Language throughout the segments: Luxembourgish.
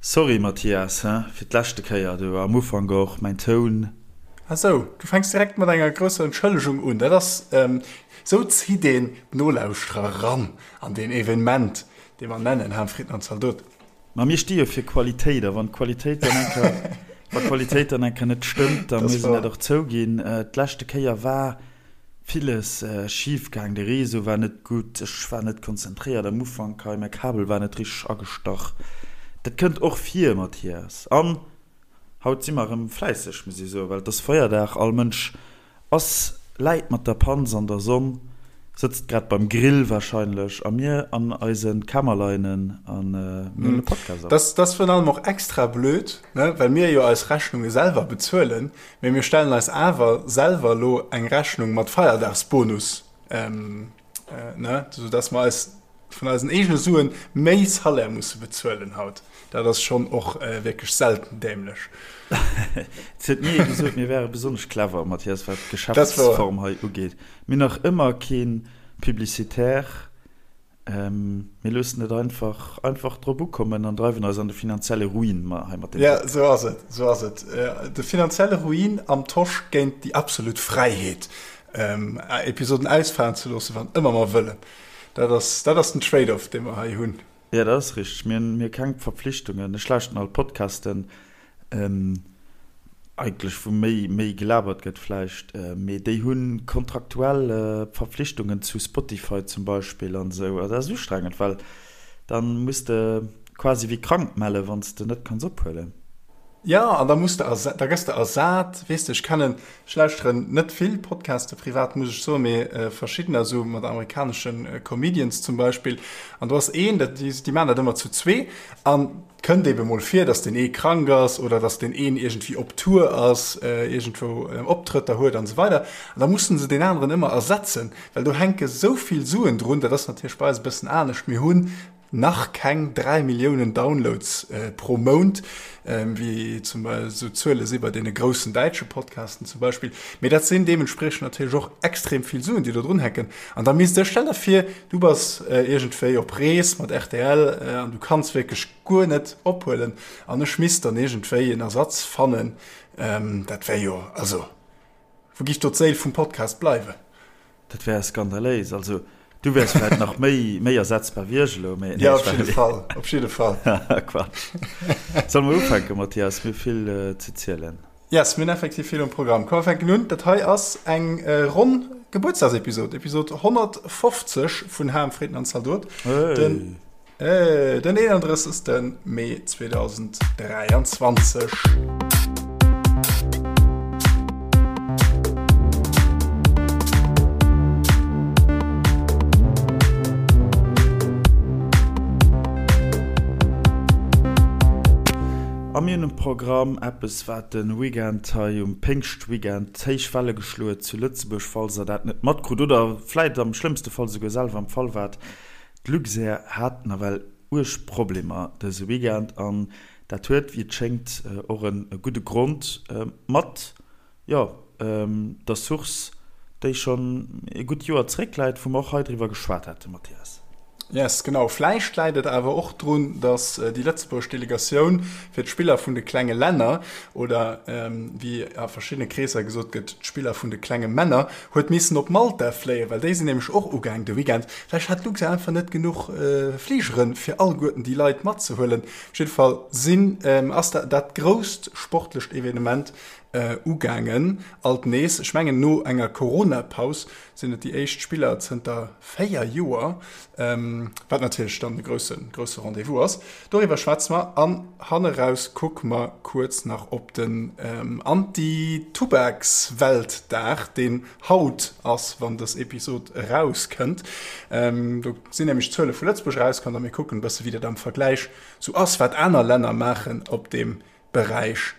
Sorry Mathias, he, fir d'leschte Kéier do am Ufank och, mäin Toun. Ah sou, du fänks direkt mat enger grousser Entschëllegung un. Dat ass, sou zitt een d'Nolauschterer ran an deen Evenement, dee mer nennen Ham, Fritten an Zaldot. Ma mir sti jo fir Qualitéit, a wann d'Qualitéit dann eng Kéier, wa Qualitéit dann eng Kéier net stëmmt, da muss een dat och zouginn. D'leschte Kéier war villes schif gaang, de Réseau war net gutt, ech war net konzentréiert am Ufank hei, mäi Kabel war net richteg agestach. Dat kënnt och vir, Mathias. An haut si mer erëm fläisseg, muss ee soen, well et ass Feierdag, all Mënsch Ass läit mat der Panz an der Sonn, sëtzt grad beim Grill wahrscheinlech a mir an eisen Kämmerleinen an mir huelen e Podcast op. Dat ass virun allem och extra blöd, ne, well mir jo eis Rechnunge selwer bezuelen, mee mir stellen eis awer selwer elo eng Rechnung mat Feierdagsbonus, ne, sou dass mer eis vun eisen eegene Suen méi Salaire musse bezuelen haut. Dat ass schonn och wierklech selten dämlech. Et huet ni ee gesot, mir wäre besonnesch clever, Mathias, wat d'Geschäftsform hei ugeet. Mir hunn nach ëmmer kee Publicitaire. Mir loossen et einfach, einfach drop ukommen an dreiwen eis an de finanzielle Ruin hei mat deem Podcast. Jo, esou ass et, esou ass et. De finanzielle Ruin am Tosch géint déi absolut Fräiheet, Episoden ausfalen ze loossen, wann ëmmer mer wëllen. Dat ass, dat ass den Trade-off, dee mer hei hunn. Jo, dat ass richteg. Mir hunn, mir hu keng Verpflichtungen. Ech lauschten all Podcasten, eigentlech, wou méi, méi gelabert gëtt vläicht, mee déi hu kontraktuell Verpflichtungen zu Spotify zum Beispill an esou. Dat ass ustrengend, well dann muss de quasi wéi krank mellen, wann s de net kanns ophuelen. Jo, an da muss de ersa, da gëss de ersat. Weess de, ech kennen, ech lauschteren net vill Podcaste privat, muss ech soen, mee verschiddener, esou mat amerikanesche Comedians zum Beispill. An do ass een, dat, déi, déi maachen dat ëmmer zu zwee. An et kënnt ebe mol vir, datt deen ee krank ass oder datt deen een iergendwéi op Tour ass, iergendwou Optrëtter huet an esou weider. An da mussen se deen aneren ëmmer ersetzen, well do hänke sou vill Suen drun. Dat ass natierlech bei eis e bëssen anescht. Mir hunn nach keng 3 Milliounen Downloads pro Mount, wéi zum Beispill esou Zuele si bei deene groussen däitsche Podcasten zum Beispill. Mee dat sinn deementspriechend natierlech och extrem vill Suen, déi do drun hänken. An da misst ech, stell der vir, du bass iergendwéi op Rees mat rtl an du kanns wierklech guer net ophuelen an ech misst dann iergendwéi en Ersatz fannen. Dat wär jo, also wou giff do d'Séil vum Podcast bleiwen? Dat wär skandaléis. Also du wäers vläit nach méi, méi ersetzbar wéi ech elo, mee. Jo, op jidde Fall, op jidde Fall. Quatsch. Solle mer ufänken, Mathias? Mir hu vill ze zielen. Yes, mir hunn effektiv vill um Programm. Komm, mer fänken un. Dat hei ass eng ronn Gebuertsdagsepisod, Episod 150 vun Ham, Fritten an Zaldot. Hey. Den 31. Mee 2023. A mir hunn um Programm eppes, wat de Weekend hei um Péngschtweekend héich Welle geschloe huet zu Lëtzebuerg, falls der dat net matkrut oder vläit am schlëmmste Fall souguer selwer am Fall waart. D'Luxair hat nawell uerg Problemer dëse Weekend an dat huet, wéi et schéngt, och e gudde Grond mat, jo, der Source, déi schonn e gutt Joer zeréckläit, wou mer och hei driwwer geschwat haten, Mathias. Yes, genau. Vläicht läit et awer och drun, datt déi lëtzebuergesch Delegatioun fir d'Spiller vun de klenge Länner, oder wéi a verschiddene Kreesser gesot gëtt, d'Spiller vun de klenge Männer, Huet missen op Malta fléien, well déi sinn nämlech och ugaang de Weekend. Vläicht hat Luxair einfach net genuch Fligeren, fir alleguerten déi Leit matzehuelen. Op jidde Fall sinn, ass dat dat grousst sportlecht Evenement ugaangen. Alt nees, ech mengen no enger Corona-Paus sinn et déi éischt Spiller zënter 4 Joer, wat natierlech dann e grousse grousse Rendez-vous ass. Doriwwer schwätze mer an hanneraus kucke mer kuerz nach op den Anti-Tubaks-Weltdag, deen haut ass, wann dës Episod erauskënnt. Do sinn nämlech d'Zuele vu Lëtzebuerg erauskomm a mir kucken e bësse wéi dat am Vergläich sou ass, wat aner Länner maachen op deem Beräich.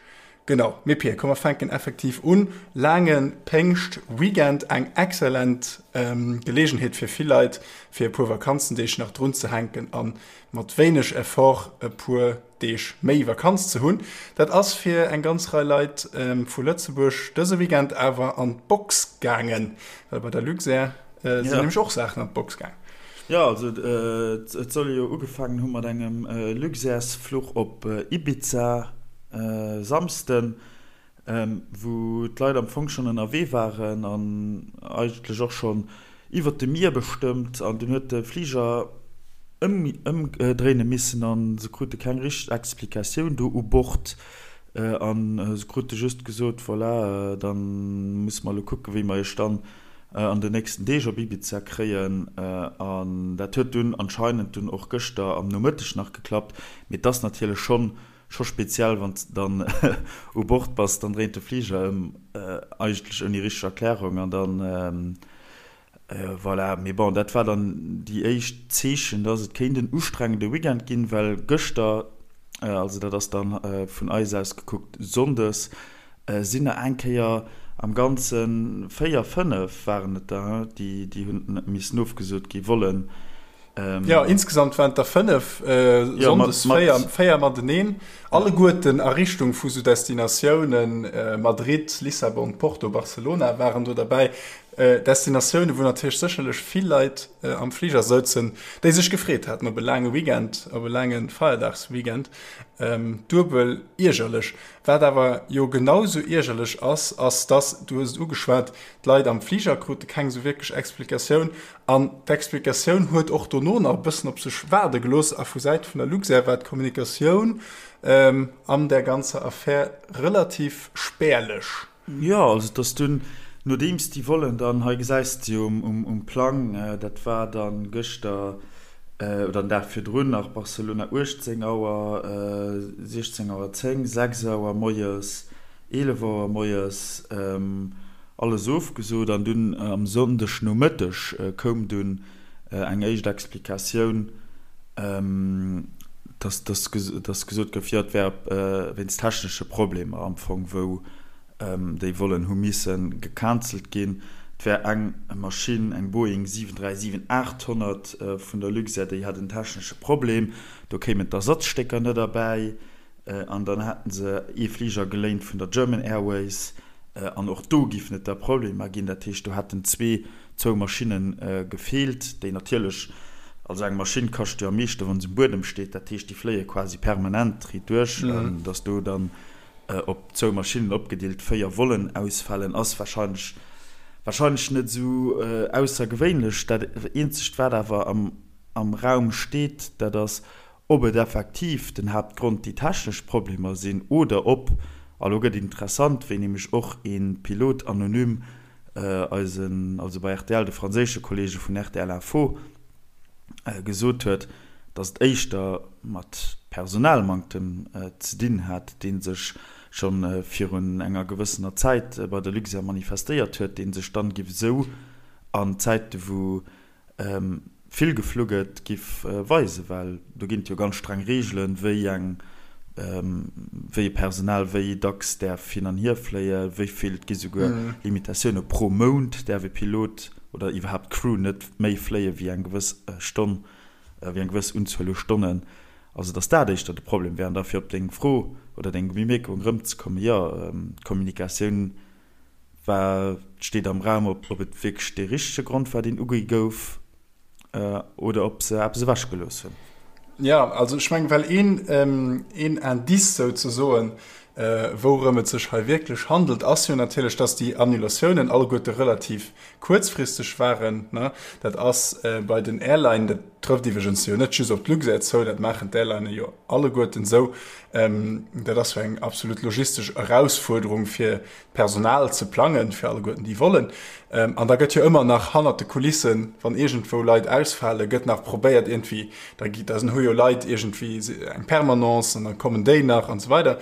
Genau, mee Pir, komm mer fänken effektiv un. Laange Péngscht-Weekend, eng excellent Geleegenheet fir vill Leit, fir e puer Vakanzendeeg nach drunzehänken a mat wéineg Effort e puer Deeg méi Vakanz ze hunn. Dat ass fir eng ganz Rei Leit vu Lëtzebuerg dëse Weekend awer an d'Box gaangen, well bei der Luxair sinn nämlech och Saachen an d'Box gaangen. Jo, also et soll jo ugefaangen hu mat engem Luxairs-Fluch op Ibiza Samsden, wou d'Leit am Fong schonn ënnerwee waren an eigentlech och schonn iwwert de Mier bestëmmt. An dunn huet de Fliger ëmdréine missen a se krute keng richteg Explikatioun do u Bord. A se krute just gesot, Voilà, da musse mer elo kucken, wéi mer iech dann an den nächsten Deeg op Ibiza kréien. An dat huet dunn anscheinend dunn och gëschter am Nomëtteg nach geklappt. Mee et ass natierlech schonn scho speziell, wann s de dann u Bord bass, dann dréint de Fliger ëm, eigentlech ouni richteg Erklärung an dann, voilà. Mee bon, dat war dann déi éischt Zeechen, dass et kéint en ustrengende Weekend ginn, well gëschter, also dat ass dann vun eis aus gekuckt sonndes, sinn der eng Kéier am Ganze 4, 5 waren et der, déi déi hunn missen ofgesot gi wollen. Jo, insgesamt waren et der 5, sonndes 4, 4 mateneen, alleguerten a Richtung vu sou Destinatiounen, Madrid, Lissabon, Porto, Barcelona waren do derbäi. Destinatiounen, wou natierlech sécherlech vill Leit am Fliger souzen, déi sech gefreet haten op e laange Weekend, op e laange Feierdagsweekend. Duebel iergerlech. Wat awer jo genau sou iergerlech ass, ass dass, du hues et ugeschwat, d'Leit am Fliger krute keng sou wierklech Explikatioun an d'Explikatioun huet och dono nach e bëssen op sech waarde gelooss a vu Säite vun der Luxair war d'Kommunikatioun an där ganzer Affär relativ spärlech. Jo, also et ass dunn, nodeems déi Vollen dann, hei gesäis de jo um Plang, dat war dann gëschter oder den Dag virdrun nach, Barcelona 18 Auer, 16 Auer 10, 6 Auer moies, 11 Auer moies, alles ofgesot. An dunn am Sonndeg Nomëtteg koum dunn eng éischt Explikatioun, dass dass gesot gouf, jo et wär wéinst technesche Problemer am Fong, wou déi Vollen hu misse gecancelt ginn. Et wär eng Maschinn, eng Boeing 737-800 vun der Luxair, déi hat en technesche Problem, do kéimen d'Ersatzstécker net erbäi. An dann hätten se ee Fliger geléint vun der German Airways an och do giffen et da Problemer ginn. Dat heescht, do hätten zwee, zwou Maschinne gefeelt, déi natierlech, also eng Maschinn kascht jo am meeschte wa se um Buedem steet, dat heescht, déi fléie quasi permanent riit duerch. Datt do dann op zwou Maschinnen opgedeelt 4 Vollen ausfalen, ass warscheinlech, warscheinlech net esou aussergewéinlech. Dat eenzegt wat awer am, am Raum steet, dat ass, Ob et effektiv den Haaptgrond déi technesch Problemer sinn oder ob, a lo gëtt et interessant, wéi nämlech och ee Pilot anonym eisen, also bei rtl, de franséische Kollege vun rtl Info, gesot huet, datt et éischter mat Personalmanktem ze dinn hat, dee sech scho virun enger gewëssener Zäit bei der Luxair manifestéiert huet, dee sech dann giff esou an Zäite wou vill geflu gëtt, giff weisen, well do ginn et jo ganz streng Reegelen, wéi eng, wéi e Personal wéi dacks däerf hin an hier fléien, wéi vill, et gi souguer Limitatioune pro Mount däerf e Pilot oder iwwerhaapt d'Crew net méi fléie wéi eng gewëss Stonn, wéi eng gewëss Unzuel u Stonnen. Also datt dat éischter de Problem wär. An da fir op deng Fro oder deng Bemierkung erëmzekommen, jo, d'Kommunikatioun War, steet am Raum, ob et wierklech dee richtege Grond war, deen ugi gouf, oder ob se eppes ewechgelooss hunn. Jo, also ech mengen, well een, een Indice souzesoen, wourëm et sech hei wierklech handelt, ass jo natierlech, dass déi Annulatiounen alleguerte relativ kuerzfristeg waren. Dat ass bei den Airline, dat trëfft iwwregens jo net just op d'Luxair zou, dat maachen d'Airlinen jo alleguerten esou, dat ass jo eng absolut logistesch Erausfuerderung, fir d'Personal ze plangen, fir alleguerten déi Vollen. An da gëtt jo ëmmer nach hannert de Kulissen, wann iergendwou Leit ausfalen, gëtt nach probéiert iergendwéi, da gi, da hu jo Leit iergendwéi eng Permanence an da kommen déi nach an esou weider.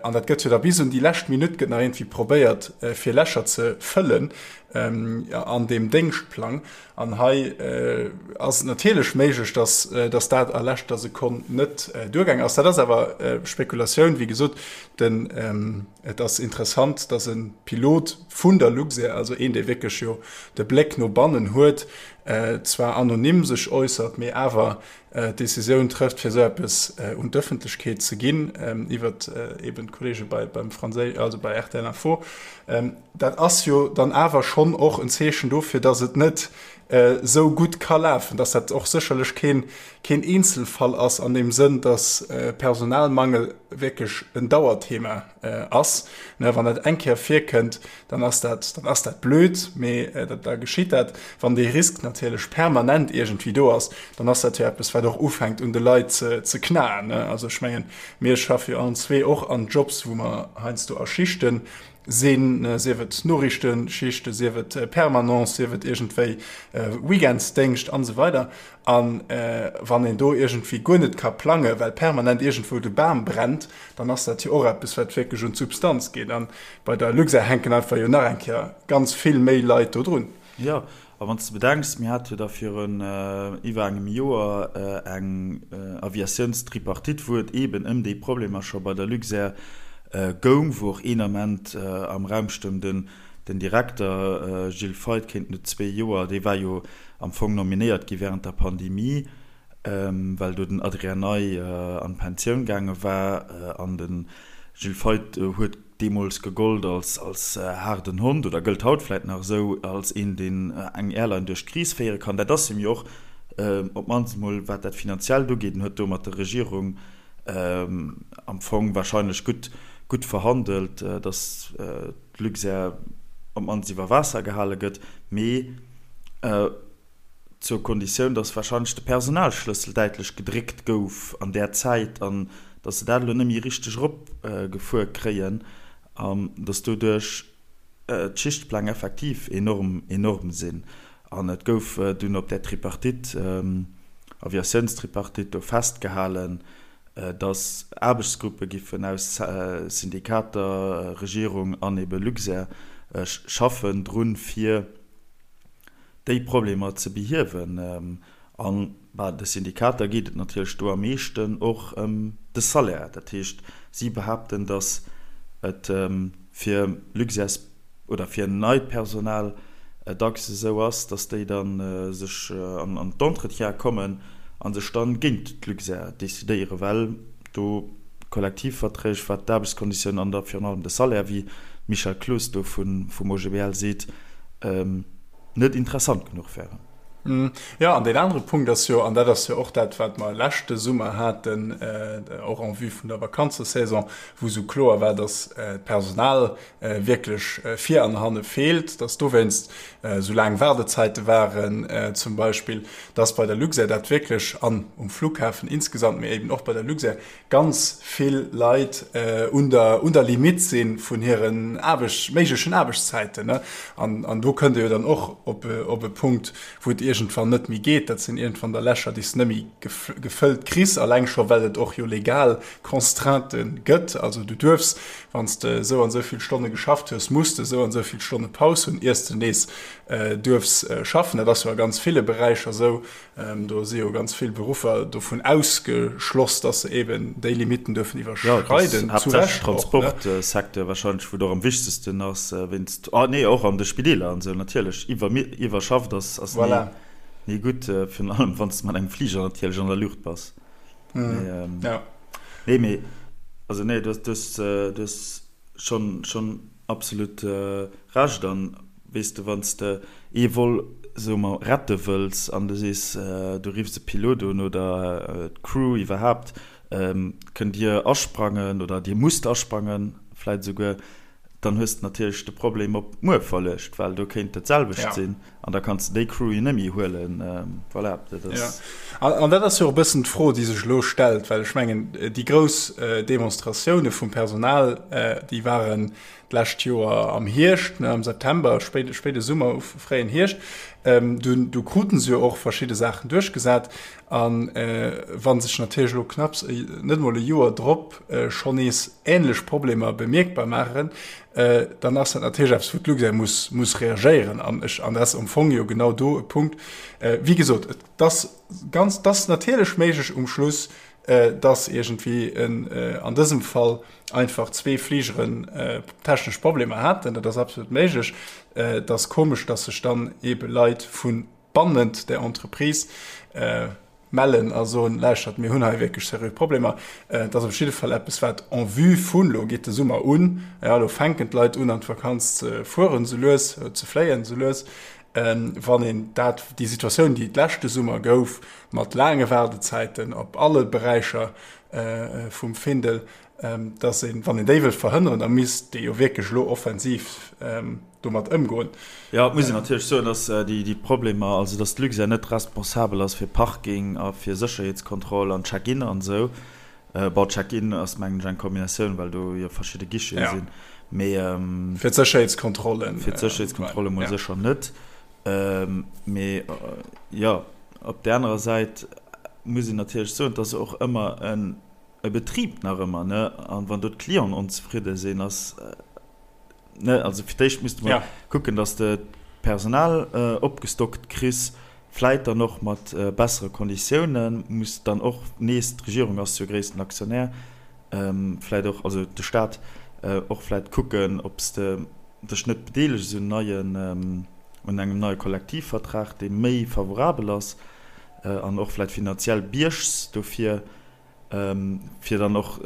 An dat gëtt jo da bis un déi lescht Minutt gëtt nach iergendwéi probéiert, fir Lächer ze fëllen an deem Déngschtplang. An hei ass et natierlech méiglech, dass, dass dat a leschter Sekonn net duergaang ass. Dat ass awer Spekulatioun. Wéi gesot, den, et ass interessant, dass e Pilot vun der Luxair, also een, dee wierklech jo de Bléck no bannen huet, zwar anonym sech äussert, mee awer d'Decisioun trëfft, fir esou eppes un d'Ëffentlechkeet ze ginn, iwwert eben d'Kollege bei, beim Fransé-, also bei rtl Info. Dat ass jo dann awer schonn och en Zeechen dofir, dass et net. esou gutt ka lafen, dass dat och sécherlech keen, keen Eenzelfall ass an deem Sënn, dass Personalmangel wierklech en Dauerthema ass. Wann dat eng Kéier virkënnt, dann ass dat, dann ass dat blöd, mee da geschitt dat. Wann dee Risk natierlech permanent iergendwéi do ass, dann ass dat jo eppes, wat och ufänkt un de Leit ze knaen. Also ech mengen, mir schaffe jo allen zwee och an Jobs, wou mer heiansdo a Schichte sinn, sief et Noriichtenschichte, sief et Permanence, sief et iergendwéi Weekendsdéngscht an esou weider. A wann een do iergendwéi guer net ka plangen, well permanent iergendwou de Bam brennt, dann ass dat jo och eppes, wat wierklech un d'Substanz geet. A bei der Luxair hänken einfach jo nach eng Kéier ganz vill méi Leit do drun. Jo, a wann s de bedenks, mir hate jo da virun iwwer engem Joer eng Aviatiounstripartite, wou et eeben ëm déi Problemer scho bei der Luxair goung, wou och een Ament am Raum stoung, den Direkter Gilles Feith kéint no zwee Joer, dee war jo am Fong nominéiert gi während der Pandemie, well do den Adrien Ney an d'Pensioun gaange war an de Gilles Feith huet deemools gegollt als als haarden Hond oder gëllt haut vläit nach esou als een, deen eng Airline duerch d'Kris féiere kann. Dat ass him jo och, op d'mannst emol wat dat Finanziellt ugeet. En huet do mat der Regierung am Fong wahrscheinlech gutt gutt verhandelt, datt d'Luxair op d'mannst iwwer Waasser gehale gëtt, mee zur Konditioun, datt wahrscheinlech de Personalschlëssel däitlech gedréckt gouf an där Zäit an datt se dat elo net méi richteg eropgefuer kréien an datt doduerch d'Schichtpläng effektiv enorm, enorm sinn. An et gouf dunn op där Tripartite, Aviatiounstripartite do festgehalen, datt Aarbechtsgruppe giffen aus Syndikater, Regierung an ebe Luxair schaffen drun, fir déi Problemer ze behiewen. A bei de Syndikater geet et natierlech do am meeschten och ëm de Salaire. Dat heescht, si behaapten, datt et fir Luxairs oder fir neit Personal dacks esou ass, datt déi da sech an d'Entretiene kommen a sech dann géint d'Luxair decidéieren, well do d'Kollektivverträg, wat d'Aarbechtskonditiounen an da virun allem de Salaire, wéi d'Michèle Cloos do vum OGBL seet, net interessant genuch wären. Jo, an deen anere Punkt ass jo, an dat ass jo och dat, wat mer leschte Summer haten, och en vue vun der Vakanzesaison, wou esou kloer war, datt d'Personal wierklech vir an hanne feelt, datt dowéinst esou laang Waardezäite waren zum Beispill, datt bei der Luxair dat wierklech, an um Flughafen insgesamt, mee eben och bei der Luxair, ganz vill Leit un der un der Limite si vun hiren Aarbecht méiglechen Aarbechtszäiten. An an do kënnt e jo dann och op op e Punkt, wou et iergendwann net méi geet. Dat sinn iergendwann da Lächer, déi s de net méi gefëllt kriss, alleng scho well et och jo legal Constraintë gëtt. Also du duerfs, wann s de esou an esou vill Stonne geschafft hues, muss de esou an esou vill Stonne Paus hunn, iers de nees duerfs schaffen. Dat ass jo a ganz ville Beräicher esou. Do si jo ganz vill Beruffer dovun ausgeschloss, dass se eben déi Limitten duerfen iwwerschreiden. Jo, zu Recht och, ne? Transportsecteur wahrscheinlech, wou et och am wichtegsten ass, wéinst, ah nee, och an de Spideeler an esou natierlech. Iwwerschafft ass, ass ni, ni gutt, virun allem wann s de mat engem Fliger natierlech an der Luucht bass. Mee, nee, mee, also nee, du hues, du hues schonn, schonn Absolut Recht. An weess de, wann s de ee Vol, soe mer, rette wëlls an du sees, du riffs e Pilot un oder d'Crew iwwerhaapt, kënnt dir asprangen oder dir musst asprangen vläit esouguer, dann hues de natierlech de Problem op muer verluecht, well do kéint dat selwecht sinn an da kanns de déi Crew jo net méi huelen. Voilà, dat ass. An dat ass jo och e bëssen d'Fro, déi sech elo stellt, well ech mengen, déi grouss Demonstratioune vum Personal, déi waren d'lescht Joer am Hierscht, am September, spéide Summer, fréien Hierscht. Du kruten se jo och verschidde Saachen duerchgesat. A wa sech natierlech elo knapps net emol e Joer drop schonn nees änlech Problemer bemierkbar maachen, dann ass dat natierlech eppes, wou d'Luxair muss, muss reagéieren. An ech, an dat ass am Fong jo genau do e Punkt, wéi gesot, et ass ganz, et ass natierlech méiglech um Schluss, dass iergendwéi an dësem Fall einfach zwee Fligeren technesch Problemer haten. Dat ass absolut méiglech. Et ass komesch, dass sech dann eebe Leit vu bannent der Entreprise mellen a soen, Lauschtert, mir hunn hei wierklech seriö Problemer. Et ass op jidde Fall eppes, wat en vue vun, elo geet de Summer un, jo, elo fänken d'Leit un, an d'Vakanz ze fueren esou lues, ze fléien esou lues. Wann een dat, déi Situatioun, déi et leschte Summer gouf, mat laange Waardezäiten op alle Beräicher vum Findel, dass een, wann een déi wëllt verhënneren, da misst ee jo wierklech elo offensiv domat ëmgoen. Jo, et muss een natierlech soen, dass déi Problemer, also dass d'Luxair net responsabel ass fir Parking a fir Sécherheetskontroll an Check-in an esou. Bon, Check-in ass mengen ech eng Kombinatioun, well do jo verschidde Guichete sinn, mee. Fir d'Sécherheetskontrollen. Fir d'Sécherheetskontrolle mol sécher net. Mee jo, op där anerer Säit muss een natierlech soen, et ass och ëmmer en e Betrib nach ëmmer, ne, an wann do d'Clienten onzefridde sinn, ass, ne, also fir d'éischt misste mer kucken, datt s de d'Personal opgestockt kriss, vläit dann och mat bessere Konditiounen, muss dann och nees, d'Regierung ass jo gréissten Aktionär, vläit och, also de Staat, och vläit kucken, ob s de dech net bedeelegs un neien, un engem neie Kollektivvertrag, dee méi favorabel ass an och vläit finanziell biergs dofir. fir dann och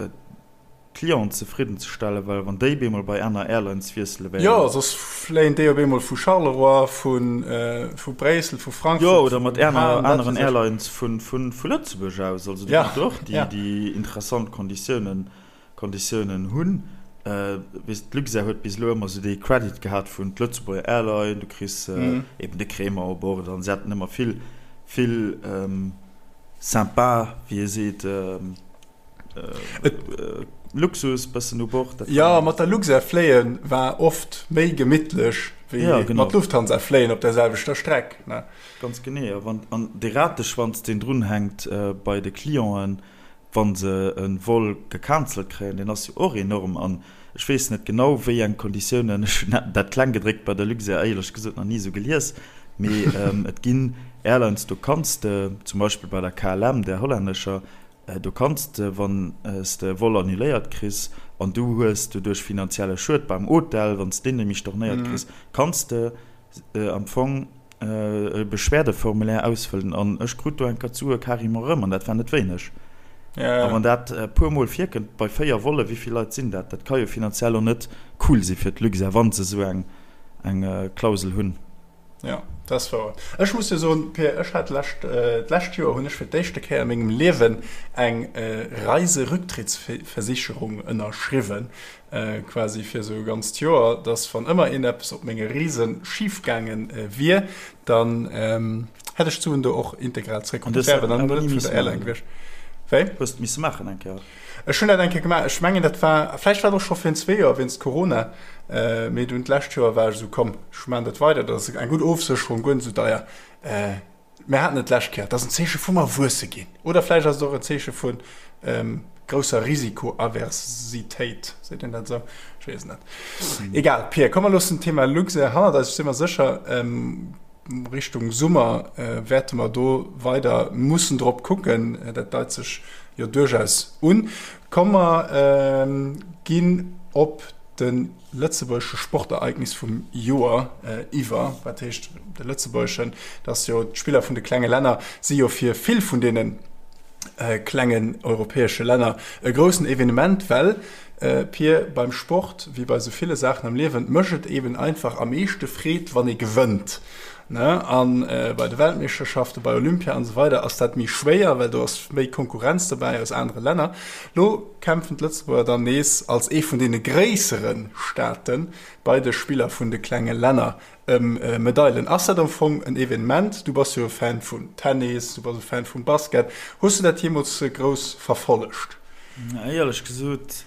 d'Clienten zefridden ze stellen, well wann déi bemol bei aner Airlines wiessele wären. Jo, soss fléien déi op eemol vu Charleroi, vu Bréissel, vu Frankfurt, Jo, oder mat aneren Airlines vu Lëtzebuerg aus. Also do kënnt och déi interessant Konditiounen Konditiounen hunn. Weess, d'Luxair huet bis elo ëmmer esou dee Credit gehat vun d'Lëtzebuerger Airline, du kriss eben de Crémant u Bord an se haten ëmmer vill, vill sympa, wéi ee seet, Luxus bëssen u Bord. Jo, mat der Luxair fléie war oft méi gemittlech wéi mat Lufthansa fléien op der selwechter Streck. Ganz genee. A wann, an dee Rateschwanz, deen drunhänkt bei de Clienten, wa se e Vol gecancelt kréien, deen ass jo och enorm. An ech weess net genau, wéi eng Konditiounen, ech hunn dat Klenggedréckt bei der Luxair éierlech gesot nach ni esou gelies, mee et ginn Airlines, do kanns de, zum Beispill bei der KLM, där hollännescher, do kanns de, wann s de e Vol annuléiert kriss an du hues doduerch finanzielle Schued beim Hotel, wann s deen nämlech stornéiert kriss, kanns de am Fong e Beschwerdeformulaire ausfëllen an ech krut do eng Kéier d'Sue carrément erëm an dat war net wéineg. A wann dat e puer Mol virkënnt bei 4 Volle, wéi vill Leit sinn dat? Dat ka jo finanziell och net cool si fir d'Luxair, wa se esou eng Klausel hunn. Jo, dat ass wouer. Ech muss jo soen, Pir, ech hat lescht, d'lescht Joer hunn ech fir d'éischte Kéier a mengem Liewen eng Reiserücktrittsversicherung ënnerschriwwen. quasi fir esou e ganzt Joer, dass wann ëmmer een eppes op menge Reese schif gaange wier, dann hätt ech d'Suen do och integral zréck. Dat wär awer dann net vun der Airline gewiescht. Wéi? Hues de misse maachen eng Kéier? Ech hunn dat eng Kéier gemaach. Ech mengen dat war, vläicht war et och scho virun zwee Joer wéinst Corona, mee dunn d'lescht Joer war ech esou, komm, ech maachen dat weider, dat ass eng gutt Ofsécherung, guer net esou deier. Mir haten et d'lescht Kéier, et ass en Zeeche vum Erwuesse ginn. Oder vläicht ass et och en Zeeche vu grousser Risikoaversitéit. Seet een dat esou? Ech weess et net. Egal, Pir, komm mer loossen d'Thema Luxair hannert eis. Ech si mer sécher, Richtung Summer wäerte mer do weider mussen drop kucken. Dat deit sech jo duerchaus un. Komm mer ginn op de lëtzebuergesche Sportereignis vum Joer iwwer. Wat heescht de lëtzebuergeschen? Dat ass jo, d'Spiller vun de klenge Länner si jo fir vill vun deene klengen europäesche Länner e groussen Evenement, well, Pir, beim Sport, wéi bei sou ville Saachen am Liewen, mécht et eben einfach am meeschte Freed, wann ee gewënnt. Ne? An bei de Weltmeeschterschaften, bei Olympia an esou weider ass dat méi schwéier, well do ass méi Konkurrenz dobäi aus anere Länner. Lo kämpfen d'Lëtzebuerger dann nees als ee vun deene gréissere Staate bei de Spiller vun de klenge Länner ëm Medailen. Ass dat am Fong en Evenement? Du bass jo e Fan vun Tennis, du bass e Fan vum Basket. Hues du dat jeemools grouss verfollegt? Éierlech gesot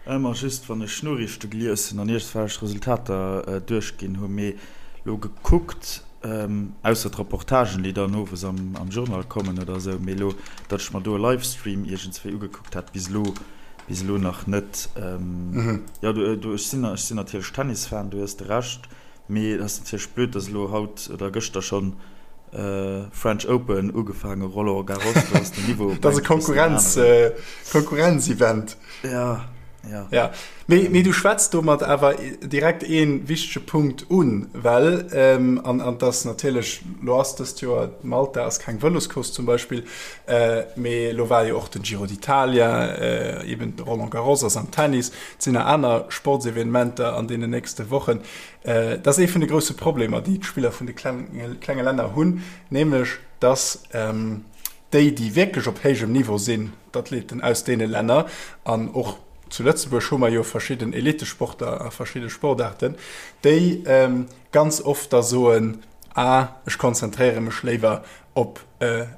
Ëmmer just wann ech Noriichte gelies hunn an iergendwelch Resultater duerchginn hunn. Mee lo gekuckt, ausser d'Reportagen déi dann owes am Journal kommen oder esou, mee lo datt ech mer do e Livestream iergendswéi ugekuckt hätt, bis elo, bis elo nach net. Jo, du, ech sinn, ech sinn natierlech Tennisfan, du hues de Recht, mee et ass natierlech blöd, datt elo haut oder gëschter schonn French Open ugefaange, Roland Garros, do ass den Niveau Dat ass e Konkurrenz, Konkurrenzevent. Ja. Ja. Ja. Mee, mee du schwätz domat awer direkt ee wichtege Punkt un, well, ähm, an, an dass natierlech, lo ass dëst Joer, Malta ass keng Vëloscourse zum Beispill, äh, mee lo war jo och den Giro d'Italia, äh, eben de Roland Garros ass am Tennis, et sinn nach aner Sportsevenementer an deenen nächste Wochen. Äh, dat ass ee vun de grousse Problemer, déi d'Spiller vun de klenge, klenge Länner hunn, nämlech dass, ähm, déi, déi wierklech op héijem Niveau sinn, d'Athleten aus deene Länner, an och zu Lëtzebuerg hu mer jo verschidden Elitesportler a verschidde Sportaarten, déi ganz oft da soen, ah, ech konzentréiere mech léiwer op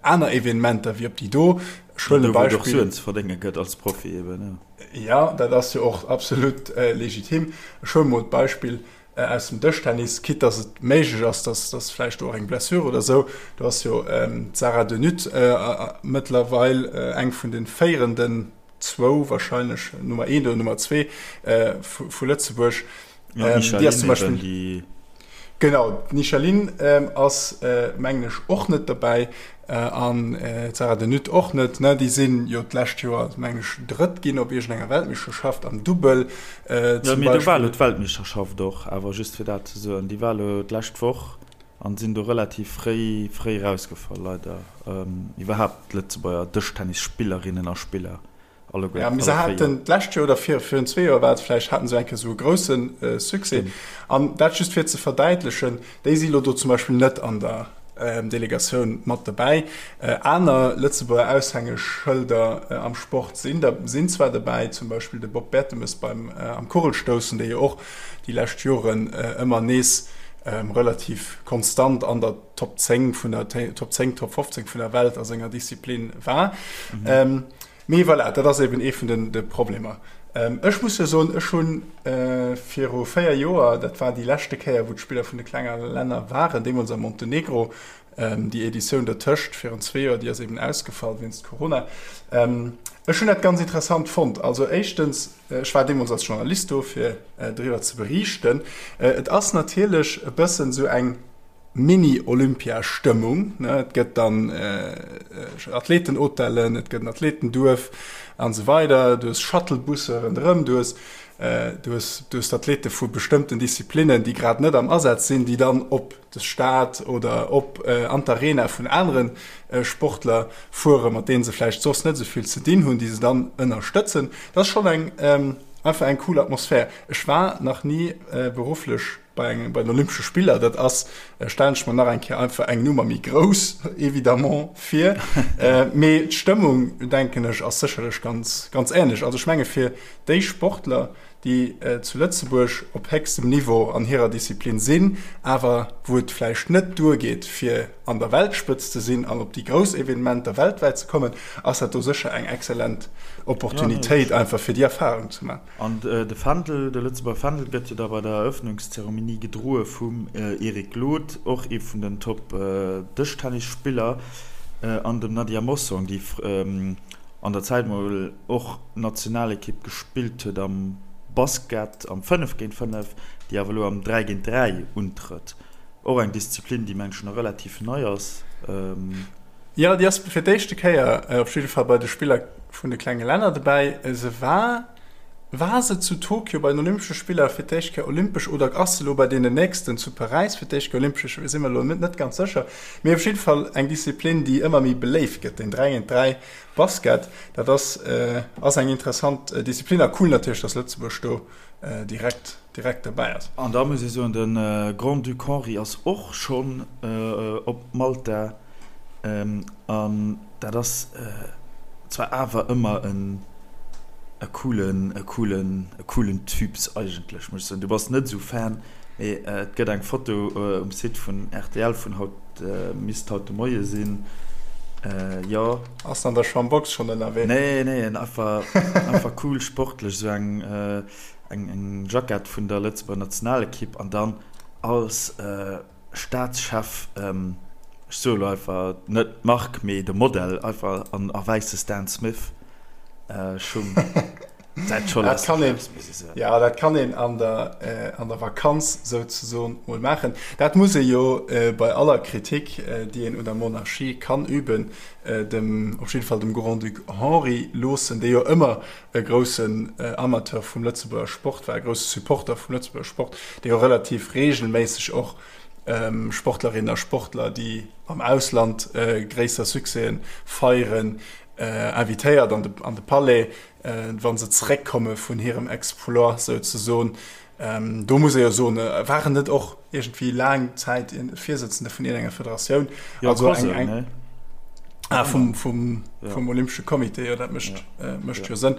aner Evenementer wéi op déi do. Ech huelen e Beispill. Wou et och Suen ze verdénge gëtt als Profi eben, jo. Jo, dat ass jo och absolut legitim. Ech huele mol d'Beispill aus dem Dëschtennis, quitte dass et méiglech ass, dass dass vläicht do och eng Blessure oder esou, do ass jo d'Sarah De Nutte mëttlerweil eng vun de féierenden zwou, wahrscheinlech Nummer eent oder Nummer zwee vu Lëtzebuerg. Déi ass zum Beispill. Genau, d'Micheline ass mengen ech och net dobäi an d'Sarah De Nutte och net. Déi sinn jo d'lescht Joer mengen ech Drëtt ginn op iergendenger Weltmeeschterschaft am Dubbel zum Beispill. Do war elo d'Weltmeeschterschaft och, awer just fir dat ze soen, déi war elo d'lescht Woch an sinn do relativ fréi fréi erausgefall leider. Iwwerhaapt d'Lëtzebuerger Dëschtennisspillerinnen a Spiller Alleguer, Ja, mee se haten d'lescht Joer oder vir, virun zwee Joer war et vläicht, haten se eng Kéier esou e grousse Succès. An dat just fir ze verdäitlechen, déi si lo do zum Beispill net an der Delegatioun mat dobäi. Aner Lëtzebuerger Aushängeschëlder am Sport sinn der, sinn zwar dobäi, zum Beispill de Bob Bertemes beim, am Kugelstoussen, dee jo och déi lescht Joren ëmmer nees relativ konstant an der Top 10 vun der, Top 10, Top 15 vun der Welt a senger Disziplin war. Mee voilà, dat ass eben ee vun de Problemer. Ech muss jo soen, ech hu viru 4 Joer, dat war déi leschte Kéier, wou d'Spiller vun de klenge Länner waren, deemools a Montenegro, déi Editioun dertëscht virun zwee Joer, déi ass eben ausgefall wéinst Corona. Ech hunn dat ganz interessant fonnt. Also éischtens, ech war deemools als Journalist do, fir driwwer ze beriichten. Et ass natierlech e bëssen esou eng Mini-Olympia-Stëmmung, ne, et gëtt dann Athletenhotellen, et gëtt en Athletenduerf an esou weider, du hues Shuttlebusse ronderëm, du hues, du hues, du hues d'Athlete vu bestëmmten Disziplinnen, déi grad net am Asaz sinn, déi dann op de Stade oder op an d'Arena vun anere Sportler fueren, mat deene se vläicht soss net esou vill ze dinn hunn, déi se dann ënnerstëtzen. Dat ass schonn eng, einfach eng cool Atmosphär. Ech war nach ni berufflech Bei engem, bei den Olympesche Spiller, dat ass, stellen ech mer nach eng Kéier einfach eng Nummer méi grouss évidemment vir. Mee d'Stëmmung, denken ech, ass sécherlech ganz, ganz änlech. Also ech menge fir déi Sportler, déi zu Lëtzebuerg op héchstem Niveau an hirer Disziplin sinn, awer wou et vläicht net duergeet, fir an der Weltspëtzt ze sinn an op déi grouss Evenementer weltwäit ze kommen, ass dat do sécher eng exzellent Opportunitéit einfach fir déi Erfarung ze maachen. An de Fändel, de Lëtzebuerger Fändel gëtt jo da bei der Eröffnungszeremonie gedroe vum Eric Glod, och ee vun den Top-Dëschtennisspiller, an dem Nadia Mossong, déi an der Zäit mol och Nationalekipp gespillt huet am Basket am 5 géint 5, déi awer elo am 3 géint 3 untrëtt. Och eng Disziplin, déi mengen ech nach relativ nei ass. Jo, déi ass fir d'éischte Kéier op jidde Fall bei de Spiller vun de klenge Länner dobäi. Se war, war se zu Tokio bei den Olympesche Spiller fir d'éischt Kéier olympesch oder ass se elo bei deenen nächsten zu Paräis fir d'éischt Kéier olympesch? Ech si mer elo net ganz sécher. Mee op jidde Fall eng Disziplin, déi ëmmer méi beléift gëtt, den 3 géint 3 Basket. Dat ass, ass eng interessant Disziplin a cool natierlech, dass Lëtzebuerg do direkt, direkt dobäi ass. An da muss ee soen, de Grand-Duc Henri ass och schonn op Malta. An dat ass zwar awer ëmmer en e coolen, e coolen, e coolen Typs eigentlech, muss ech soen. Du bass net esou Fan, mee et gëtt eng Foto um Site vun rtl vun haut, misst haut de Moie sinn, jo. Ass en an der Schambox schonn ënnerwee? Nee, nee, en einfach, einfach cool, sportlech, esou eng, eng, eng Jackett vun der Lëtzebuerger Nationalekipp an dann als. Staatschef, ech soe lo einfach net d'Mark, mee de Modell, einfach an a wäisse Stan Smith Schung. Dat scho Dat kann een, ja, dat kann een an der, äh, an der Vakanz souzesoen mol maachen. Dat muss ee jo äh, bei aller Kritik, äh, déi een un der Monarchie kann üben, äh, dem, op jidde Fall dem Grand-Duc Henri loossen, dee jo ëmmer e groussen äh, Amateur vum Lëtzebuerger Sport war, e grousse Supporter vum Lëtzebuerger Sport, dee jo relativ reegelméisseg och ähm, Sportlerinnen a Sportler, déi am Ausland äh, gréisser Succèsen feieren, äh, invitéiert an de, an de Palais, wa se zeréckkomme vun hirem Exploit souzesoen. Do muss ee jo soen, war en net och iergendwéi laang Zäit Virsëtzende vun iergendenger Federatioun? Jo, also eng, eng, ne? Ah, vum, vum, ja. vum Olympesche Comité, jo, dat mécht, ja. äh, mécht jo Sënn.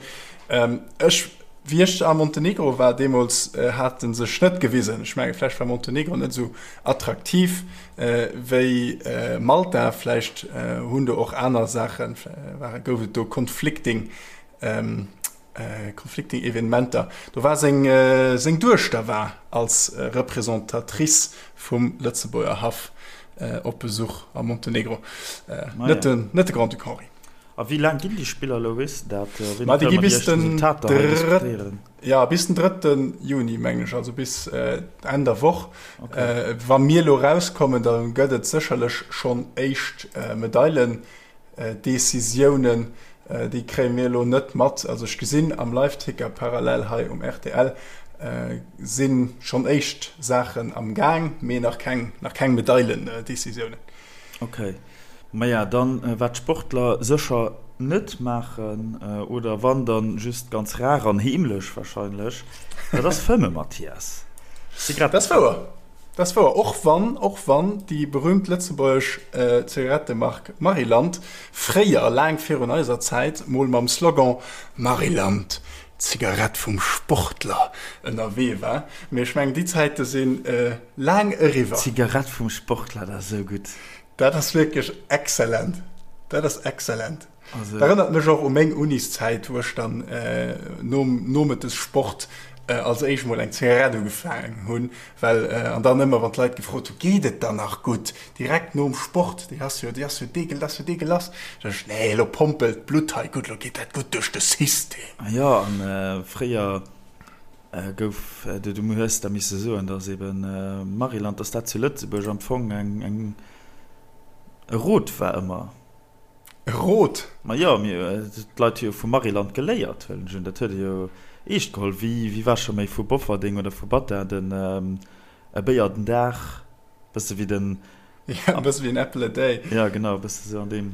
Ähm, ech, wéi ech a Montenegro war deemools, äh, hat en sech net gewisen. Ech menge vläicht war Montenegro net esou attraktiv äh, wéi äh, Malta. Vläicht äh, hunn do och aner Saachen, ware, gouf et do conflicting ähm, äh, conflicting Evenementer. Do war seng, äh, seng Duechter war als äh, Representatrice vum Lëtzebuerger Haff äh, op Besuch a Montenegro. Äh, ah, net, ja. den, net de Grand-Duc Henri. A wéi laang ginn déi Spiller elo, weess de dat? Wéini kënne mer déi éischt Resultater hei diskutéieren? Ja, bis den 3. Juni, mengen ech, also bis Enn der Woch. Okay. Wa mir elo rauskommen, da gëtt et sécherlech schonn éischt Medailendecisiounen. Déi kréie mir elo net mat. Also ech gesinn am Liveticker parallel hei um rtl si schonn éischt Saachen am Gaang, mee nach keng, nach keng Medailendecisiounen. Okay. Maja, dann wat d'Sportler sécher net maachen, oder wann dann just ganz rar an heemlech wahrscheinlech, dat ass fëmme, Mathias. Dat ass wouer, dat ass wouer, och wann, och wann déi berühmt lëtzebuergesch Zigarettemark Maryland fréier, laang virun eiser Zäit, mol mam Slogan Maryland, d'Zigarett vum Sportler ënnerwee war. Mee ech mengen, déi Zäite si laang eriwwer. D'Zigarett vum Sportler, dat ass esou gutt. Dat ass wierklech exzellent. Dat ass exzellent. Also. Dat erënnert mech och u meng Uniszäit, wou ech dann nom Nomëttessport als éischt mol eng Zigarett ugefaangen hunn, well, an dann ëmmer wann d'Leit gefrot hunn, Geet et dann nach gutt? Direkt nom Sport, déi ass jo, déi ass jo deegel, dat ass jo deegelass. Sot ech, Nee, elo pompelt d'Blutt hei gutt, elo geet dat gutt duerch de System. Jo, an fréier Gouf, du hues da misse soen, datt eben Maryland, datt dat zu Lëtzebuerg am Fong eng, eng, e Rot war ëmmer. E Rot? Ma jo, mir, d'Leit hu jo vu Maryland geléiert, huelen ech un. Dat huet ee jo eescht geholl. Wéi, wéi war scho méi vu Bofferding oder vu Battin den, e Béier den Dag, bësse wéi den. Ja, e bësse wéi en Apple a day. Ja, genau, e bësse sou an deem,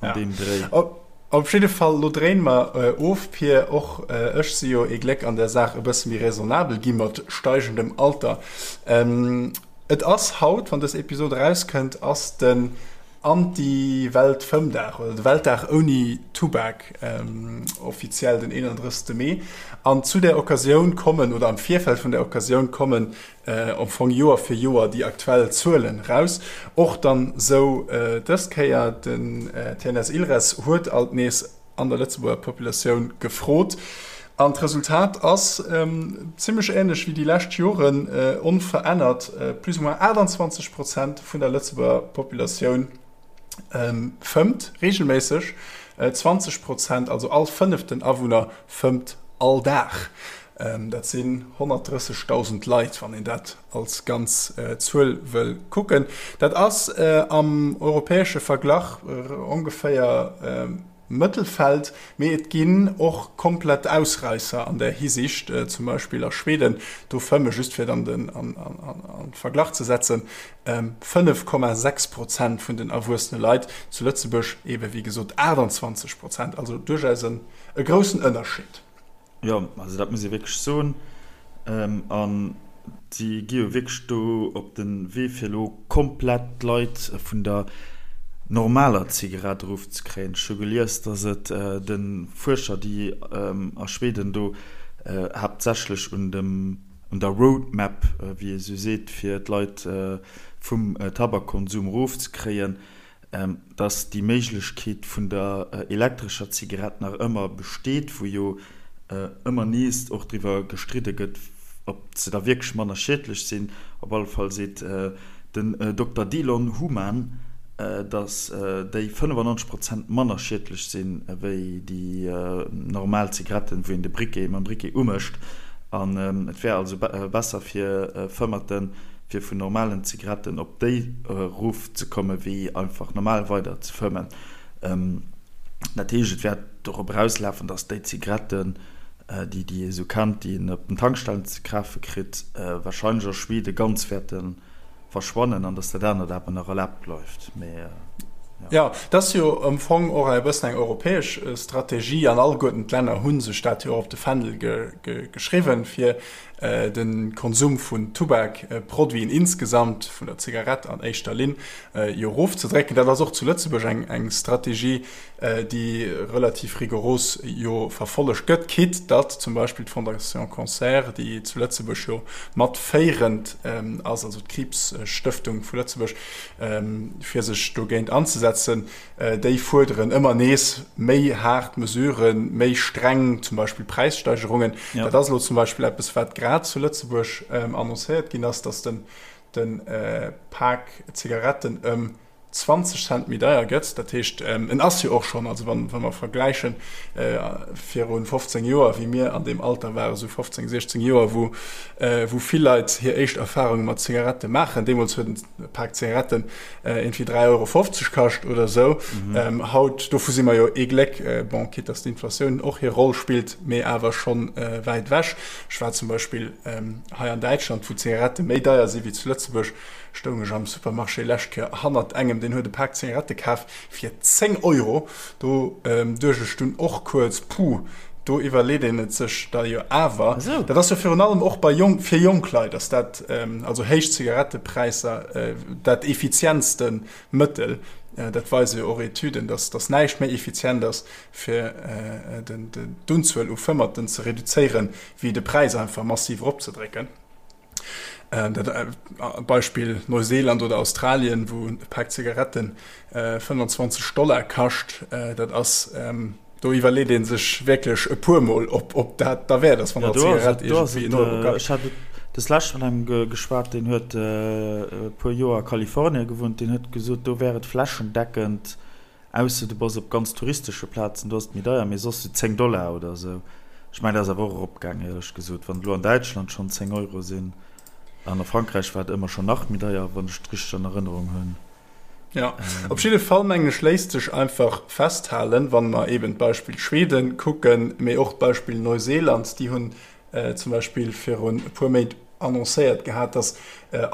an ja. deem Dréi. Op, op jidde Fall, lo dréine mer äh, of, Pir. Och äh, ech si jo ee Gléck an der Saach e bësse méi raisonnabel gi mat steigendem Alter. Ähm, et ass haut, wann dës Episod erauskënnt, ass den Anti-Welt-Fëmmdag oder de Weltdag ouni Tubak, ähm, offiziell den 31. Mee. An zu der Occasioun kommen, oder am Virfeld vun der Occasioun kommen am Fong Joer fir Joer déi aktuell Zuelen raus. Och dann sou dës Kéier, den TNS Ilres huet alt nees an der Lëtzebuerger Populatioun gefrot an d'Resultat ass zimmlech änlech wéi déi lescht Joren, onverännert, plus ou moins 28 Prozent vun der Lëtzebuerger Populatioun fëmmt reegelméisseg, 20 Prozent, also all fënneften Awunner, fëmmt all Dag. Dat sinn 130.000 Leit, wann een dat als ganz Zuel wëll kucken. Dat ass am europäesche Verglach ongeféier Mëttelfeld, mee et ginn och komplett Ausräisser an där Hisiicht, zum Beispill a Schweden, do fëmme, just fir et an de Verglach ze setzen, 5,6 Prozent vun den erwuessene Leit, zu Lëtzebuerg eebe wéi gesot 28 Prozent, also duerchaus e groussen Ënnerscheed. Jo, also dat muss ee wierklech soen. A si gi jo wierklech do op de Wee, fir elo komplett d'Leit vun der normaler Zigarett erofzekréien. Ech hu gelies, datt et de Fuerscher, déi a Schweden do haaptsächlech un dem, un der Roadmap, wéi ee sou seet, fir d'Leit vum Tabakkonsum erofzekréien, dass déi Méiglechkeet vun der elektrescher Zigarett nach ëmmer besteet, wou jo ëmmer nees och driwwer gestridde gëtt, ob se da wierklech manner schiedlech sinn. Op alle Fall seet den Dokter Delon Human. Datt déi 95 Prozent manner schiedlech sinn ewéi déi normal Zigaretten, wou een de Briquet mam Briquet umécht. An et wär also besser fir Fëmmerten, fir vun normalen Zigaretten op déi erof ze komme wéi einfach normal weider ze fëmmen. Dat heescht, et wäert dorop erauslafen, datt déi Zigaretten, déi déi ee sou kennt, déi een op den Tankstellen ze kafe kritt, warscheinlech a Schweden ganz wäerte verschwannen an dass dat anert awer nach erlaabt bleift. Mee jo. Jo, dat ass jo am Fong och e bëssen eng europäesch Strategie an alleguerten d'Länner hu sech dat jo och op de Fändel geschriwwen, fir de Konsum vun Tubakproduiten insgesamt, vun der Zigarett an éischter Linn, jo erofzedrécken. Dat ass och zu Lëtzebuerg eng Strategie, déi relativ rigoros jo verfollegt gëtt, quitte datt zum Beispill d'Fondation Cancer, déi zu Lëtzebuerg jo mat féierend ass, also d'Kriibsstëftung vu Lëtzebuerg, fir sech dogéint anzesetzen, déi fuerderen ëmmer nees méi haart Mesuren, méi streng zum Beispill Präissteigerungen. Dat ass elo zum Beispill eppes, wat grad zu Lëtzebuerg annoncéiert ginn ass, datt de Pak Zigaretten ëm 20 Cent méi deier gëtt. Dat heescht, en ass jo och schonn, also wa mer vergläichen viru 15 Joer, wéi mir an deem Alter waren, esou 15, 16 Joer, wou wou vill Leit hir éischt Erfarunge mat Zigarette maachen, deemools huet e Pak Zigaretten iergendwéi 3,50 Euro kascht oder esou. Haut, dovu si mer jo ee Gléck, bon, quitte dass d'Inflatioun och hir Roll spillt, mee awer schonn wäit ewech. Ech war zum Beispill hei an Däitschland, wou d'Zigarette méi deier si wéi zu Lëtzebuerg, Stoung ech am Supermarché lescht Kéier hannert engem, deen huet e Pak Zigarette kaf fir 10 Euro. Do duecht ech dunn och kuerz, Puh, do iwwerleet een et sech da jo awer. Dat ass jo virun allem och bei jonk, fir jonk Leit ass dat, also héich Zigarettepräisser, dat effizientste Mëttel. Dat weise jo och Etüden, dass dass näischt méi effizient ass, fir d'Unzuel u Fëmmerten ze reduzéieren, wéi de Präis einfach massiv eropzedrécken. Dat Beispill Neuseeland oder Australien, wou e Pak Zigaretten 25 Dollar kascht, dat ass, do iwwerleet ee sech wierklech e puer Mol, ob dat derwäert ass, wann eng Zigarett iergendwéi en Euro kascht. Ech hat des Lescht mat engem geschwat, deen huet e puer Joer a Kalifornien gewunnt, deen huet gesot, do wär et flächendeckend Ausser du bass op ganz touristesche Plazen, do ass et méi deier, mee soss sou 10 Dollar oder sou. Ech mengen, dat ass awer och eropgaang, éierlech gesot. Wann et elo an Däitschland schonn 10 Euro sinn, an a Frankräich war et ëmmer schonn nach méi deier, wann ech et richteg an Erënnerung hunn. Jo, op jidde Fall mengen ech léisst sech einfach festhalen, wann mer eben d'Beispill Schweden kucken, mee och d'Beispill Neuseeland, déi hunn zum Beispill virun e puer Méint annoncéiert gehat, datt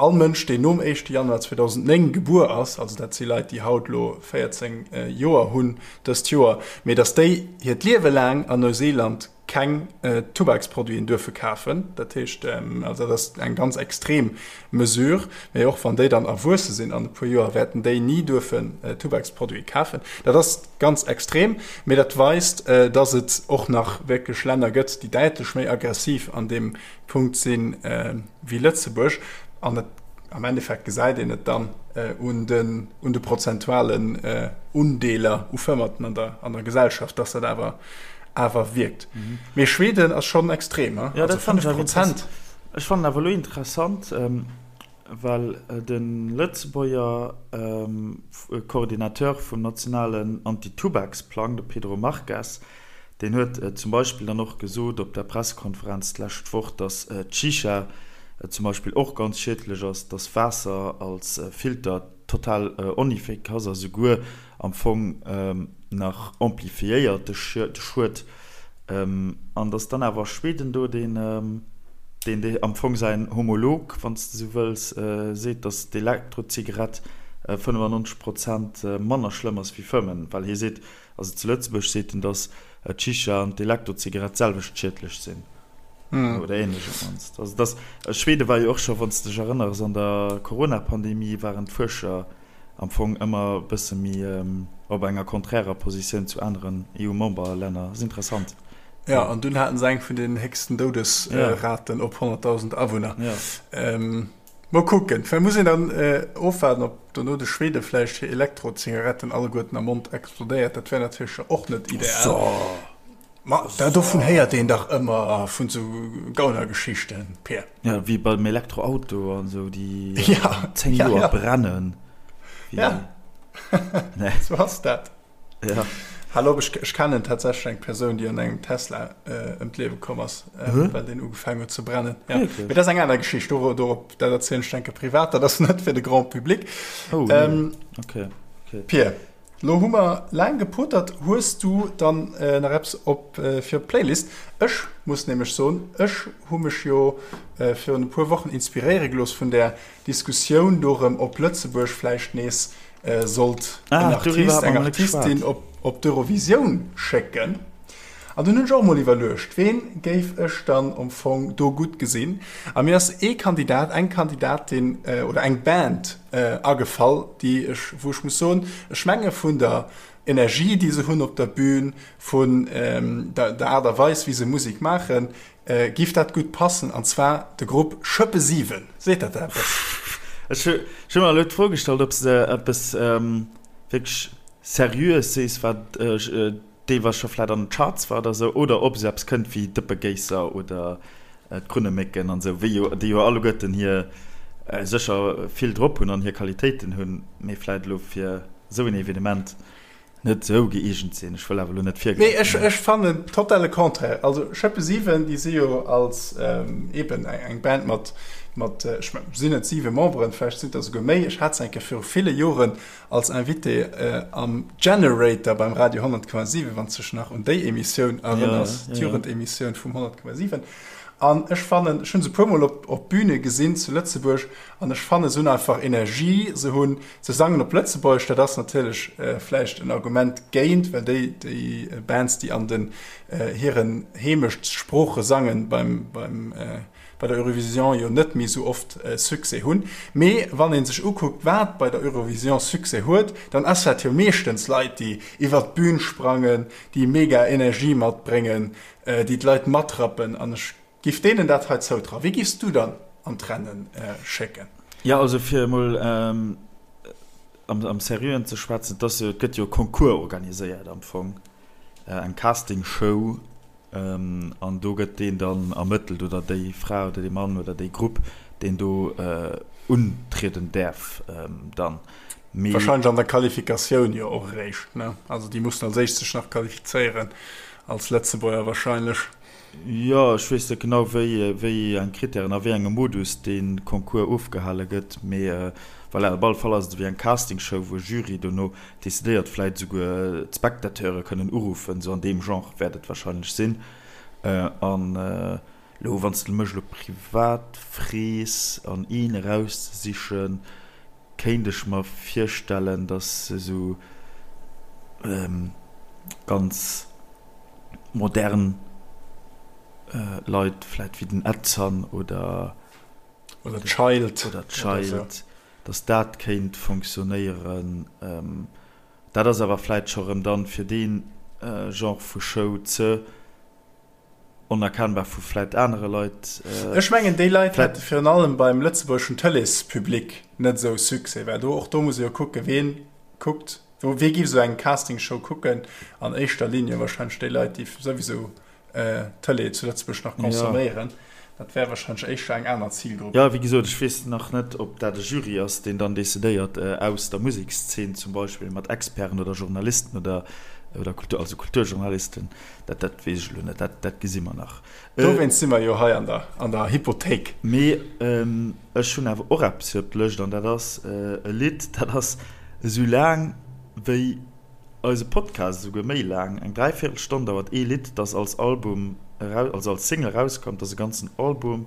all Mënsch, deen nom éischte Januar 2009 gebuer ass, also dat si Leit, déi haut elo 14 Joer hunn dëst Joer, mee datt déi hiert Liewe laang an Neuseeland keng Tubaksproduiten duerfe kafen. Dat heescht, also dat ass eng ganz extrem Mesure, mee och wann déi dann erwuesse sinn an e puer Joer, wäerten déi ni duerfen Tubaksproduite kafen. Dat ass ganz extrem, mee dat weist, datt et och nach wierklech Länner gëtt, déi däitlech méi aggressiv an deem Punkt si wéi Lëtzebuerg. An et, am Endeffekt gesäit een et dann un den, un de prozentualen Undeeler u Fëmmerten an der, an der Gesellschaft, datt dat awer, awer wierkt. Mee Schweden ass schonn extrem, he? Also 5 Prozent. Ech fannen awer elo interessant, well de Lëtzebuerger Coordinateur vum nationalen Anti-Tubaksplang, de Pedro Marques, deen huet zum Beispill dann och gesot op der Pressekonferenz d'lescht Woch, datt d'Shisha zum Beispill och ganz schiedlech ass, datt Waasser als Filter total oneffikass ass a souguer am Fong nach amplifiéiert de Schued. An datt dann awer Schweden do, deen deen am Fong säin Homolog, wann s de esou wëlls, seet, datt d'Elektrozigarett 95 Prozent manner schlëmm ass wéi Fëmmen, well hie seet, also zu Lëtzebuerg seet en, datt d'Shisha an d'Elektrozigarett d'selwecht schiedlech sinn oder ähnlech op d'mannst. Also datt, Schwede war jo och scho, wann s de dech erënners, an der Corona-Pandemie waren d'Fuerscher am Fong ëmmer e bësse méi op enger konträrer Positioun zu aneren EU-Memberlänner. Ass interessant. Jo, an dunn haten se eng vun den héchsten Doudesraten op 100.000 Awunner. Mol kucken, vläicht muss een dann ofwaarden, ob dono de Schwede vläicht hir Elektrozigaretten alleguerten am Mond explodéiert. Dat wär natierlech och net ideal. Ma da dovun héiert een dach ëmmer vun sou Gaunergeschichten, Pir. Ja, wéi beim Elektroauto an sou, déi 10 Joer brennen. Ja. Nee. Sou ass dat. Ja. Hal op, ech, ech kennen tatsächlech eng Persoun, déi an engem Tesla äh, ëm d'Liewe komm ass, äh, well deen ugefaangen huet ze brennen. Ja. Mee dat ass eng aner Geschicht, do, dorop, dat erzielen ech denke privat, dat ass net fir de Grand Public. Oh, nee. Ähm, okay. Okay. Pir, lo hu mer laang gepotert. Hues du dann äh, nach eppes op, äh, fir op d'Playlist? Ech muss nämlech soen, ech hu mech jo äh, virun e puer Wochen inspiréiere gelooss vun där Diskussioun dorëm, ob Lëtzebuerg vläicht nees sollt en Artist, eng Artistin op, op d'Eurovisioun schécken. An dunn hunn ech och mol iwwerluecht, ween géif ech dann am Fong do gutt gesinn. A mir ass ee Kandidat, eng Kandidatin oder eng Band agefall, déi ech, wou ech muss soen, ech menge vun der Energie, déi se hunn op der Bühn, vun der Aart a Weis, wéi se Musek maachen, Giff dat gutt passen, an zwar de Grupp Schëppe 7. Seet dat der eppes? Ech hu mer elo d'Fro gestallt, ob s de eppes wierklech Seriöes sees, wat deelweis scho vläit an den Charts war oder esou, oder ob esou eppes kënnt wéi Dëppegéisser oder d'Krunnemécken an esou, wéi jo déi jo alleguerten hir sécher vill drop hunn an hir Qualitéiten hunn, mee vläit elo fir esou en Evenement net esou gëeegent sinn. Ech wëll awer elo net virgräifen. Nee, ech, ech fannen totale Contraire. Also Schëppe 7, déi si jo als eben eng Band mat, mat ech mengen, sinn et 7 Memberen, vläicht sinn et der esouguer méi. Ech hat se eng Kéier viru ville Joren als Invité am Generator beim Radio 100,7, wann s dech nach un déi Emissioun erënners, d'Jugendemissioun vum 100,7. An ech fannen, ech hunn se e puermol op, op Büne gesinn zu Lëtzebuerg, an ech fannen, se hunn einfach Energie, se hunn, se sangen op Lëtzebuergesch, dat ass natierlech vläicht en Argument géint, well déi, déi Bands, déi an den hiren Heemechtssprooche sangen, beim, beim, bei der Eurovision jo net méi esou oft Succès hunn. Mee wann ee sech ukuckt, wat bei der Eurovision Succès huet, dann ass dat jo meeschtens Leit, déi iwwert d'Bün sprangen, déi mega Energie matbréngen, déi d'Leit matrappen an ech giff deenen dat hei zoutrauen. Wie giffs du dann an d'Rennen schécken? Jo, also fir emol am Seriöen ze schwätzen, et ass jo, et gëtt jo e Concours organiséiert am Fong, eng Castingshow, an do gëtt deen dann ermëttelt oder déi Fra oder dee Mann oder déi Grupp, deen do untrieden däerf dann. Mee. Wahrscheinlech an der Qualifikatioun jo och eréischt, ne? Also déi mussen als éischt sech nach qualifizéieren als Lëtzebuerger wahrscheinlech. Jo, ech weess net genau wéi wéi eng Krittären a wéi engem Modus dee Concours ofgehale gëtt, mee voilà, op alle Fall ass et ewéi eng Castingshow, wou e Jury dono decidéiert, vläit esouguer d'Spectateure kënnen uruffen, esou an deem Genre wäert et wahrscheinlech sinn. An elo wann s de mech elo privat frees an een erauszesichen, kéint ech mer virstellen, dass esou ganz modern Leit, vläit wéi den Edson oder oder Child, oder Child, dass dat kéint fonctionnéieren. Dat ass awer vläit scho rëm dann fir dee Genre vu Show ze. Onerkennbar vu vläit anere Leit. Ech mengen, déi Leit hätte virun allem beim lëtzebuergeschen Tëleespublic net esou Succès, well do, och do muss ee jo kucken, ween kuckt, wee giff esou eng Castingshow kucken? An éischter Ligne wahrscheinlech déi Leit, déi souwisou Tëlee zu Lëtzebuerg nach consomméieren. Dat wär wahrscheinlech éischter eng aner Zilgrupp. Jo, wéi gesot, ech weess nach net, ob dat e Jury ass, deen dann decidéiert, aus der Musekszeen zum Beispill, mat Experten oder Journalisten oder, oder Kultur, also Kulturjournalisten. Dat, dat weess ech elo net, dat, dat gesi mer nach. Dowéinst si mer jo hei an der, an der Hypothéik. Mee ech hunn awer och eppes fir op d'Lëscht, an dat ass e Lidd, dat ass esou laang wéi eise Podcast, esouguer méi laang, eng Dräivéierelstonn dauert ee Lidd, dat als Album eraus, also als Single erauskomm, dat ass e ganzen Album.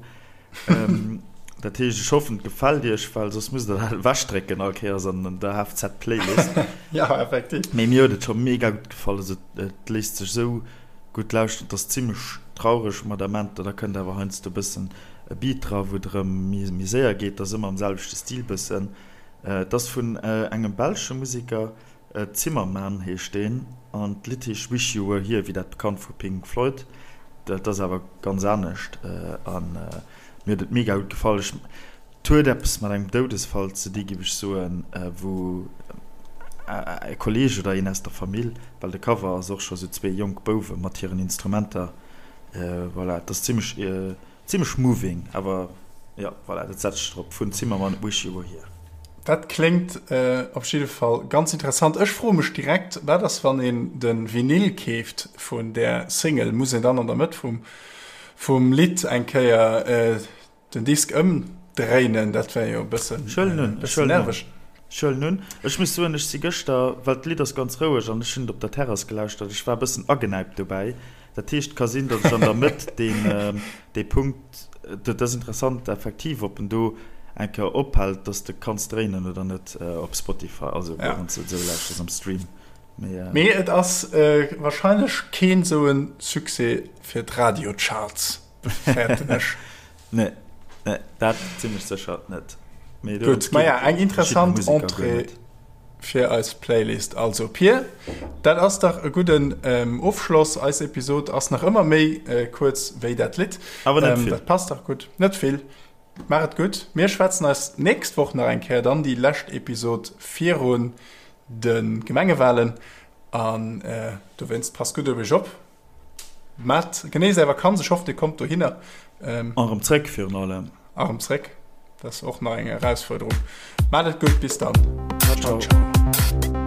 Dat heescht, ech hoffen, et gefält iech, well soss musst der dat ewechdrécken all Kéiers an der HFZ-Playlist. Ja, effektiv. Mee mir huet et scho mega gutt gefall. Also et léisst sech esou gutt lauschteren. Et ass zimmlech traureg mat Amenter, da kënnt awer heiansdo e bëssen e Beat dra, wou et erëm méi séier geet. Et ass ëmmer am selwechte Stil bëssen. Et ass vun engem belsche Museker. Zimmerman heescht deen an d'Lidd heescht Wish You Were Here, wéi dat bekannt vu Pink Floyd. Dat ass awer ganz anescht an mir huet et mega gutt gefall. Ech, et huet eppes mat engem Doudesfall ze di giff ech soen, wou e Kolleeg oder een aus der Famill, well de Cover ass och scho sou zwee jonk Bouwe mat hiren Instrumenter, voilà, et ass zimmlech Zimmlech moving, awer jo, voilà, dat setzt sech drop, vun Zimmermann, Wish You Were Here. Dat kléngt op jidde Fall ganz interessant. Ech froe mech direkt, wat ass wann een de Vinyl keeft vun där Single? Muss een dann an der Mëtt vum vum Lidd eng Kéier den Disk ëmdréinen? Dat wär jo e bëssen nerveg. Ech huelen un. Ech muss soen, ech si gëschter, well d'Lidd ass ganz roueg an ech hunn et op der Terrass gelauschtert, ech war e bëssen agenäipt dobäi. Dat heescht, et ka sinn, datt ech an der Mëtt deen, dee Punkt, dat ass interessant effektiv, ob en do eng Kéier ophält, datt s de kanns dréinen oder net op Spotify, also wann s de et esou lauschters am Stream. Mee, Mee et ass wahrscheinlech keen esou e Succès fir d'Radiocharts, fäerten ech. Nee, nee, dat zimmlech sécher net. Mee Gutt, maja, eng interessant Entrée fir eis Playlist. Also Pir, dat ass dach e gudden Ofschloss. Eis Episod ass nach ëmmer méi kuerz wéi dat Lidd. Awer net vill. Dat passt dach gutt. Net vill. Maach et gutt. Mir schwätzen eis d'nächst Woch nach eng Kéier, dann déi lescht Episod virun de Gemengewalen. An dowéinst passt gutt op iech op. Maat genéisst är Vakanz, ech hoff dir kommt dohinner. An erëm zréck virun allem. A rëm zréck, dat ass och nach eng Erausfuerderung. Maat et gutt, bis dann. Ciao ciao.